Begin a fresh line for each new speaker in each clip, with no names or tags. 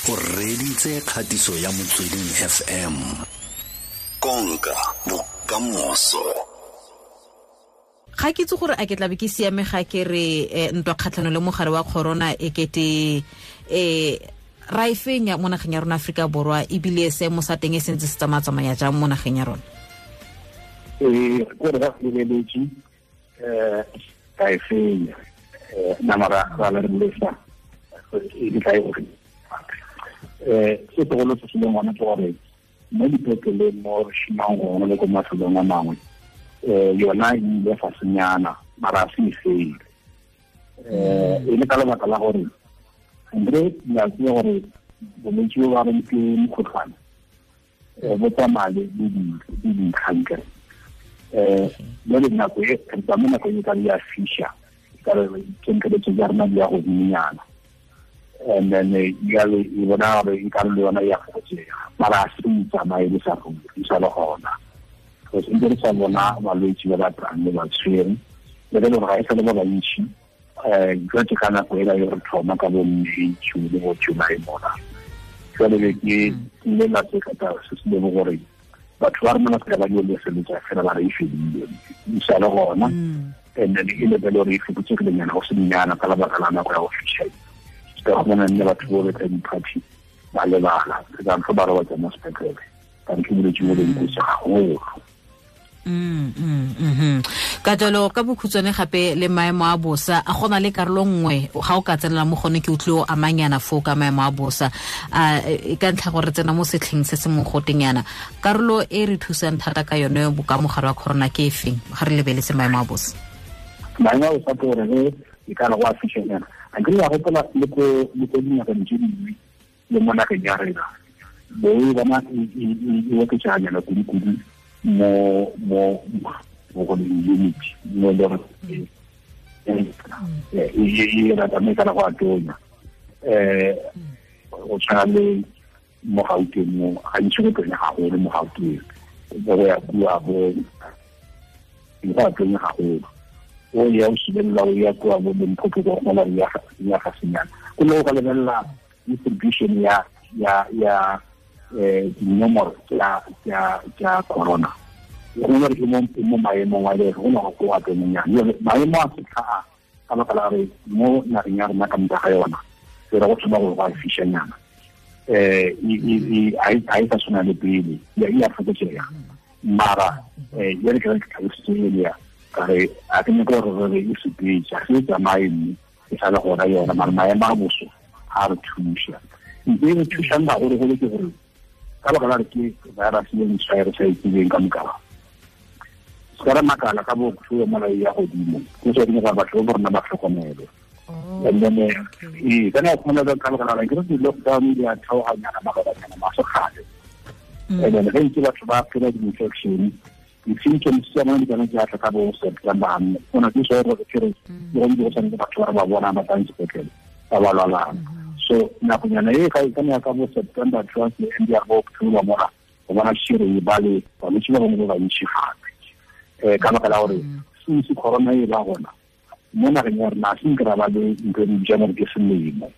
O reditse kgatiso ya Motsweding FM. Konka bokamoso.
Ga ke itse gore a ke tlabe ke siame ga ke re ntwa kgatlhano le mogare wa corona e kete ra e fenya mo nageng ya rona Afrika Borwa, ebile seemo sa teng e sentse se tsamaya-tsamaya jang mo nageng ya rona?
Gore ga lebeletse ka e fenya nama ra le lesa e di tla e gore se segolo se se leng gona ke gore mo dipetleleng mo re šomang gona le ko mafelong a mangwe yona e ile fasenyana mara a se e fele e le ka lebaka la gore andre le a tseba gore bolwetse bo ba reng ke mokgotlhwane bo tsamaya le dintlhankere jale nako e re tsamaya nako e ka ya fisha ka re temperature ya rona di ya godimonyana. And then jale e bona gore e ka le yona ya fokotsega mara a se tsamaye le sa ruri e sa le gona. Go sentse re sa bona balwetse ba ba tlang le ba tshwere le le gore ga e sa le ba bantši jwa ke ka nako ela e re thoma ka bo May, June le bo July mona. Jwale be ke ile la se ka se se le gore batho ba rona ba ba di leseletsa fela ba re e fedile e sa le gona. And then e le belo re e fokotsegile nyana go se nyana ka lebaka la nako ya go fitlhela. Ka go bona nne batho bo betla di-party ba lebala ka ntho ba robatsa mo sepetlele ka ntho bolwetse bo leng kotsi gagolo.
Ka jalo ka bokhutshwane gape le maemo a bosa a gona le karolo nngwe ga o ka tsenela mo gone ke utlwe o amanyana foo ka maemo a bosa a e ka ntlha gore tsena mo setlheng se se mogotenyana karolo e re thusang thata ka yone boka mogare wa corona ke efeng ga re lebeletse maemo a bosa?
Maemo a bosa ke gore ge e ka re go a fišenyana a ke ya gopola le ko dinageng tse dingwe le mo nageng ya rena bo e bona e oketseganyana kudu-kudu mo go unit mo le gore e rata mme kana go a tonya go tshwana le mo Gauteng mo gantsi go tonya gagolo mo Gauteng bo go ya kua bo go a tonya gagolo o ya o sibelela o ya kua bo Limpopo go gona ya ga senyana go le go lebelela distribution ya dinomoro tsa corona go gore ke mo maemong a le go no go a tonyana maemo a setlha ka baka la re mo nageng ya rona ka moka ga yona se re go thoma go a fišanyana a e sa tshwana le pele ya fokotsega mara jale ke re ke tlhalositse elia ka re a ke nyaka gore re e sepetse ga se tsamaye mme e sa le gona yona mara maemo a boso a re thuša ntse e re thušang gagologolo ke gore ka baka la re ke virus e ntšha e re sa itsebeng ka moka se ka re makala ka bo thuo mola ya godimo go tswa dingwe gore batho ba rona ba tlhokomele. And then ka nako khona ka baka la ke re di-lockdown di a theoganyana mabakanyana masogale. And then ge ntse batho ba phela di-infection di-symptoms tsa bona di kana di atla ka bo September gona ke so gore ke re go ntse go tshwanetse batho ba ba bona ba tlang sepetlele ba ba lwalang. So nakonyana e ka e ka bo September towards the end ya bo October mora go bona šire e ba le balwetse ba bangwe ba bantši gape ka baka la gore since corona e ba gona mo nageng ya rena se nka ba le ntho e bitswang gore ke selemo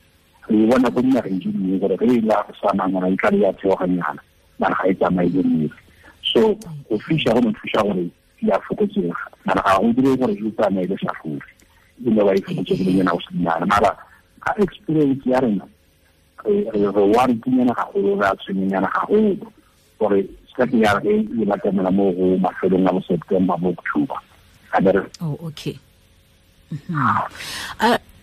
re e bona ko dinageng tse dingwe gore ge e la sa nangwana e tla le ya theoganyana mara ga e tsamaye le nnete. So go fiša go no thuša gore ya fokotsega mara ga go dire gore e tsamaye le sa ruri e le ba e fokotsegile go senyana mara ka experience ya rena re worry-nyana gagolo re a tshwenyana gagolo gore se ke ya re e batamela mo go mafelong a bo September bo October.
Oh, okay.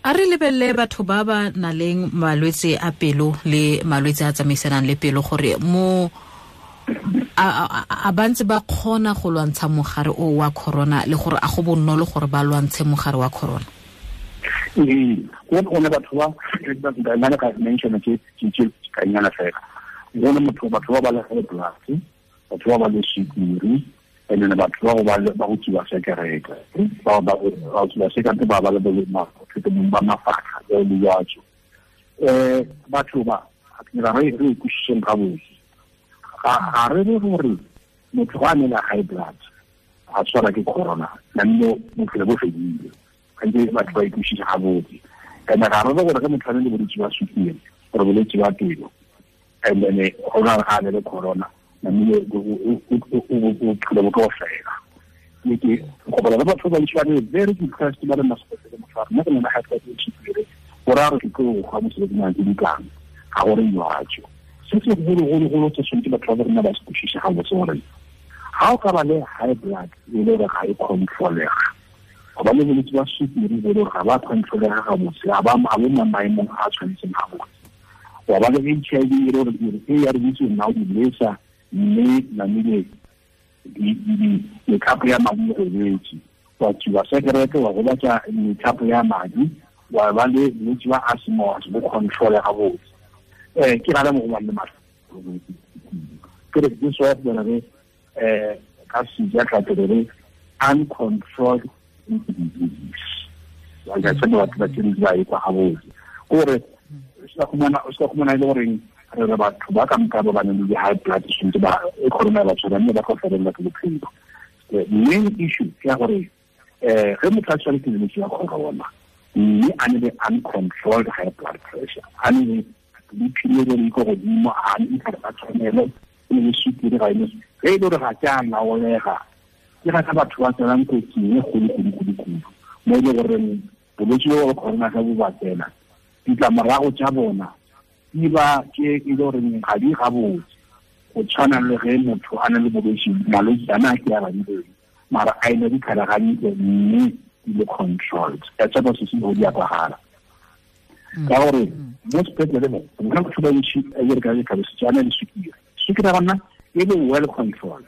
A re lebelele batho ba ba nang le malwetse a pelo le malwetse a tsamaisanang le pelo gore mo a bantse ba kgona go lwantsha mogare o wa corona le gore a go bonolo gore ba lwantshe mogare wa corona.
Go ne batho ba nna ka mention ke ka nyana fela go ne motho batho ba ba le high blood batho ba ba le sukiri and then batho ba ba go tsuba sekerete ba ba go tsuba sekerete ba ba le bolwetse ba mafatlha le dijatso batho ba ra re re kušeng gabotse ga re re gore motho ga a ne le high blood a tshwara ke corona nammo bophelo bo fedile gantsi batho ba ikušisa gabotse and ga re re gore ge motho a ne le bolwetse ba sukiri gore bolwetse ba pelo and then go na ga le corona namile bophelo bo tlo fela. Ke go bona ba batho ba ntse ba le very depressed ba le masepetlele motho nna ke nna high blood pressure go raya gore ke tlo go mosebetsing a ke dikang ga gore jwatso. Se se golo se tshwanetse batho ba rona ba se kwešiše gabotse gore ga o ka ba le high blood e le gore ga e controlega, go ba le bolwetse ba sukiri bo le gore ga ba controlega gabotse, ga ba mo maemong a tshwanetseng gabotse, wa ba le HIV e le gore e ya re itse nna o di lesa mme namile methapo ya madi e robetse, wa tsuba sekerete wa gobatsa methapo ya madi, wa ba le bolwetse ba asthma bo controle gabotse. Ke rata mo go bang le matlho ke re this wa re ka seja re uncontrolled disease. Wa ga tsena batho ba tsene ba e kwa gabotse gore o sa khumana ile gore re batho ba ka nka ba ba nang le high blood pressure ba e corona ba tshwana mme ba go felela ke bophelo. The main issue ke gore ge motho a tshwere ke bolwetse ba corona mme a ne le uncontrolled high blood pressure, a ne le diphilo di ko godimo, a ne ka tshwanelo le sukiri ga ene ge e le gore ga ke a laolega, ke ga batho ba tsenang kotsing e kgolo mo e le gore bolwetse bo ba corona ga bo ba tsena ditlamorago tsa bona di ba ke e le gore ga di gabotse go tshwana le ge motho a na le bolwetse malwetse ana a ke a badileng mara a ene ditlhare gantle mme di le controlled. Ka tsapa se se go di a kwagala ka gore mo sepetlele mo nna batho ba ntši a re ka tlhalosetsa ana le sukiri, sukiri ya gona e le well controlled,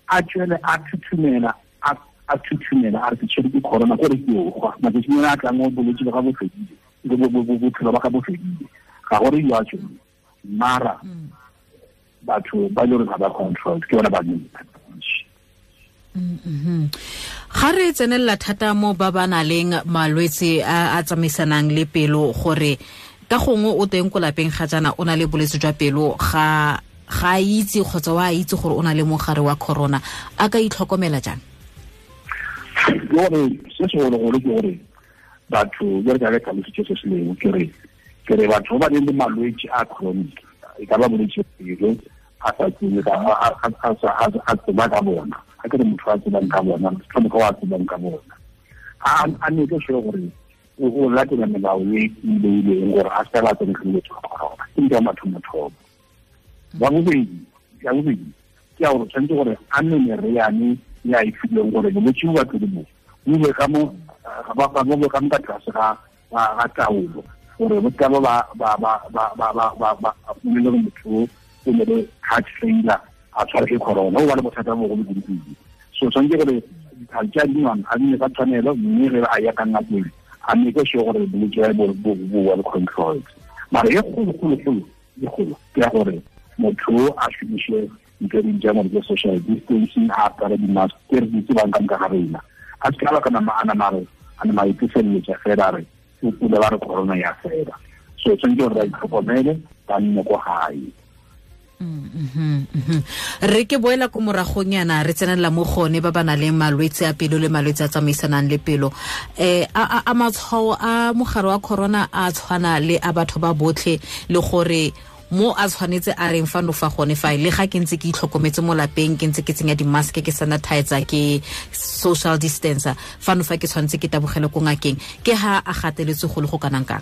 a tswele a thuthumela a re ke tshwere ke corona gore ke o gwa matsatsing a tlang o bolwetse ba ga bo fedile bophelo ba ga bo fedile ga gore jwatso mara batho ba le gore ga ba controlled ke bona ba neng.
Ga re tsenelela thata mo ba ba nang le malwetse a tsamaisanang le pelo gore ka gongwe o teng ko lapeng ga jaana o na le bolwetse jwa pelo ga itse kgotsa wa itse gore o na le mogare wa corona, a ka itlhokomela jang?
Gore se segologolo ke gore batho ba re ka tlhalositse se se leng ke re batho ba ba nang le malwetse a chronic e ka ba bolwetse pelo a sa tsebe a tseba ka bona, a ke re motho a tsebang ka bona tlhomoka wa tsebang ka bona a ne ke sure gore o latela melao e beileng gore a seka tsene ke bolwetse ba corona. Ke ntho ya mathomothomo. Ya bobedi ke ya gore tshwanetse gore a nne meriane ya e filweng gore bolwetse bo ba pele bo bo ka mo ga ba bo ka mo ka tlase ga taolo gore bo ka ba le motho o ne le heart failure a tshwara ke corona o ba le bothata bo go kudu. So tshwanetse gore ditlhare tse a di nwang a nne ka tshwanelo mme ge a ya ka ngakeng a mme ke sure gore bolwetse bo well controlled. Mara e kgolo ke ya gore motho a šomiše ntho e bitswang gore ke social distancing, a apare di-mask ke re di tsebang ka moka ga rena, a se ka ba ka nama a nama itefeletša fela re o pula ba re corona ya fela. So tshwanetse gore ba itlhokomele ba nne ko gae.
Re ke boela ko moragong yana re tsenelela mo gone ba ba nang le malwetse a pelo le malwetse a tsamaisanang le pelo. A matshwao a mogare wa corona a tshwana le a batho ba botlhe le gore mo a tshwanetse a reng fano fa gone fa le ga ke ntse ke itlhokometse mo lapeng ke ntse ke tsenya di-mask ke sanitizer ke social distancer fano fa ke tshwanetse ke tabogele ko ngakeng ke ha a gateletse go le go kanang kang?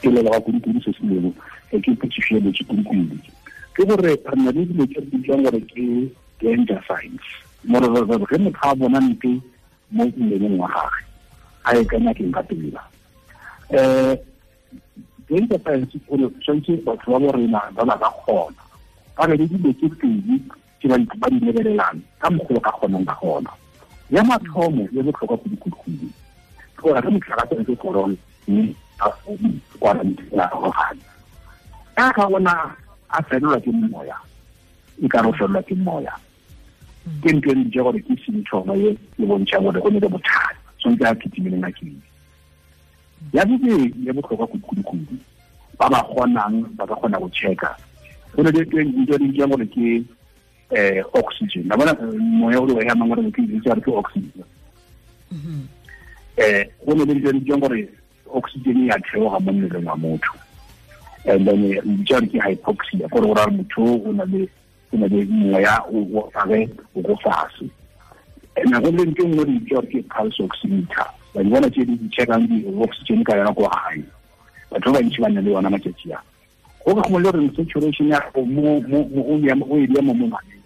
Ke leboga kudu-kudu se se leng ke potšišo ya botse kudu-kudu ke gore re na le dilo tse di bitswang gore ke danger signs more ge motho a bona nte mo mmeleng wa gagwe a ye ka ngakeng ka pela. Danger signs gore tshwanetse batho ba bo rena ba ba ka kgona ba be le dilo tse pedi tse ba di lebelelang ka mokgwa ka kgonang ka gona. Ya mathomo e botlhokwa kudu-kudu ke gore ge motho a ka tsena ke corona mme a quarantine a gogane ka ga bona a felelwa ke moya e ka re o felelwa ke moya ke ntho e ntse gore ke symptom e e bontšha gore go ne le bothata tshwanetse a kitimele ngakeng. Ya bobedi ya botlhokwa kudu-kudu ba ba kgonang ba ka kgona go checka go ne le ntho e bitswang gore ke oxygen. La bona moya o re o hemang gore ke bitsa ke oxygen. Go ne le ntho e bitswang gore oxygen ya theoga mo mmeleng wa motho. And then re bitsa ke hypoxia, gore go raya motho o na le moya o gage o go fatshe. And go le ntho nngwe re bitsa ke pulse oximeter. Ba di bona tse di checkang di-oxygen ka yona ko gae. Batho ba bantsi ba na le yona matšatši a. Go ka gongwe le gore saturation ya gago mo o e mo monwaneng,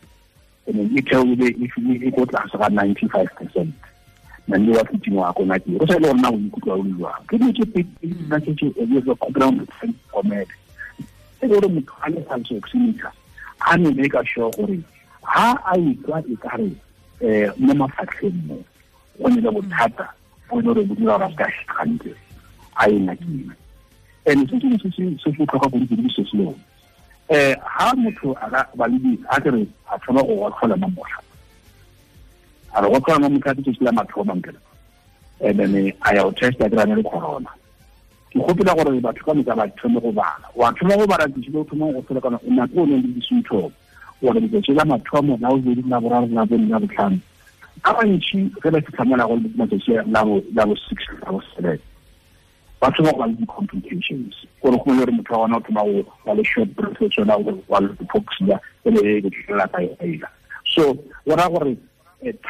and e theoile e ko tlase ga 95%. Nne wa fiting wa ko ngakeng, go sa le gore na o ikutlwa o le jwang. Ke dilo tse pedi nna tse tse kgopela tlhokomele. E le gore motho a le pulse oximeter a ne make sure gore ha a ikwa e kare mo mafatlheng mo go ne le bothata bo e le gore bo dira gore a se ka hantle, a ye ngakeng. And se sengwe se se botlhokwa kudu-kudu se se leng, ha motho a ka ba le a kere a thoma go gotlhola mo motlha, a re gotlhola mo motlha ke la mathomo nkela, and then a ya go testa kry-a le corona. Ke gopela gore batho ka moka ba thome go bala. Wa thoma go bala tšatši le o thomang go tlhola kana nako o neng le di-symptom, gore letsatsi la mathomo la bobedi, la boraro, la bone, la botlhano, ba bantši ge ba fitlha mola go matsatsi la bo 6, la bo 7, ba thoma go ba le di-complications. Gore go le gore motho wa gona o thoma go ba le short breath, o tsona go ba le hypoxia, e le e tlela ka ela. So go raya gore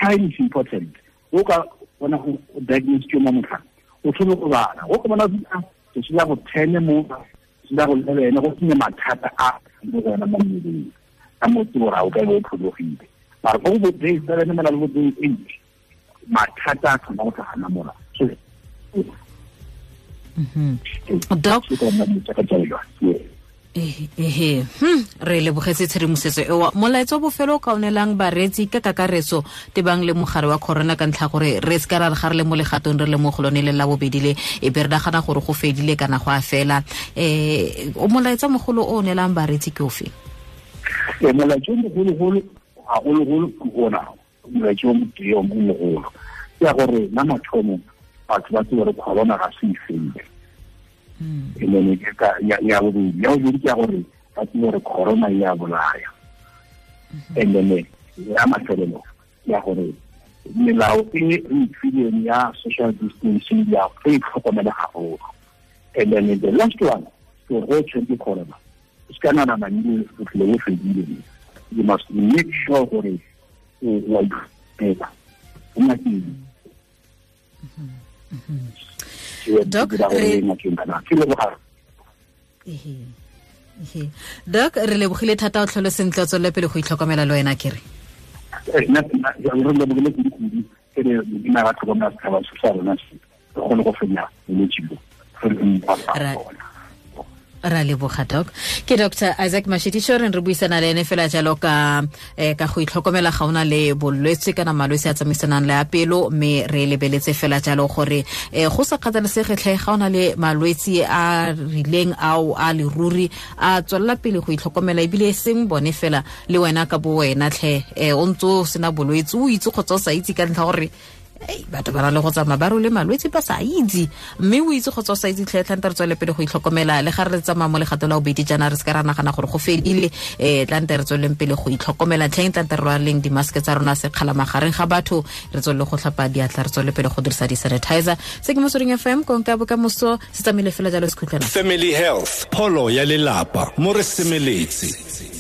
time is important. O ka bona go diagnose ke mo motlhang, o thome go bala. O ka bona tsatsi la go 10 mo, tsatsi la go 11, go sene mathata a mo go yona mo mmeleng, ka mo ke gore o ka be o phologile. Mara go bo day 7 mola le bo day 8, mathata a thoma go tlhagana mola. So
Doc, re lebogetse tshedimosetso eo. Molaetsa wa bofelo o ka o neelang bareetsi ka kakaretso tebang le mogare wa corona, ka ntlha gore re se ka ra re ga re le mo legatong re le mo go lone le la bobedi le, e be re nagana gore go fedile kana go a fela. O molaetsa mogolo o neelang bareetsi ke ofe?
Molaetsa o mogologolo gagologolo ke ona, molaetsa o motee o mogolo ke ya gore na mathomo batho ba tsebe gore corona ga se e fele. And then ya bobedi, ya bobedi ke ya gore ba tsebe gore corona e a bolaya. And then ya mafelelo ke ya gore melao e re ifileng ya social distancing ya e tlhokomele haholo. And then the last one, ke gore go tshwere ke corona, o se ka nagana nnile bophelo bo fedile. You must make sure gore o a iphela o ngakeng.
Doc, Doc, re lebogile thata, o tlhole sentle, o tswelele pele go itlhokomela le wena kere.
Re lebogile kudu-kudu, ke re Modimo a ba tlhokomela setšhaba se sa rona se, re kgone go fenya bolwetse bo, re le
Ra leboga Doc. Ke Dr. Isaac Mashitiso, re buisana le ene fela jalo ka ka go itlhokomela ga ona le bolwetse kana malwetse a tsamaisanang le a pelo, mme re lebeletse fela jalo gore go sa kgathalesege tlhe ga ona le malwetse a rileng ao a leruri, a tswelela pele go itlhokomela, ebile e seng bone fela le wena ka bo wena tlhe, o ntse o sena bolwetse, o itse kgotsa o sa itse, ka ntlha gore batho ba na le go tsamaya ba role malwetse ba sa itse, mme o itse kgotsa o sa itse tlhe, tlante re tswele pele go itlhokomela. Le ga re tsamaya mo legato la bobedi jaana, re se ka ra nagana gore go fedile, tlante re tsweleng pele go itlhokomela tlheng, tlante re rwaleng dimaske tsa rona sekgala magareng ga batho, re tswelele go tlhapa diatla, re tswele pele go dirisa di-sanitizer. Se ke Motsweding FM, konka bokamoso se tsamaile fela jalo sekhutlwana.
Family Health, pholo ya lelapa, mo re semeletse.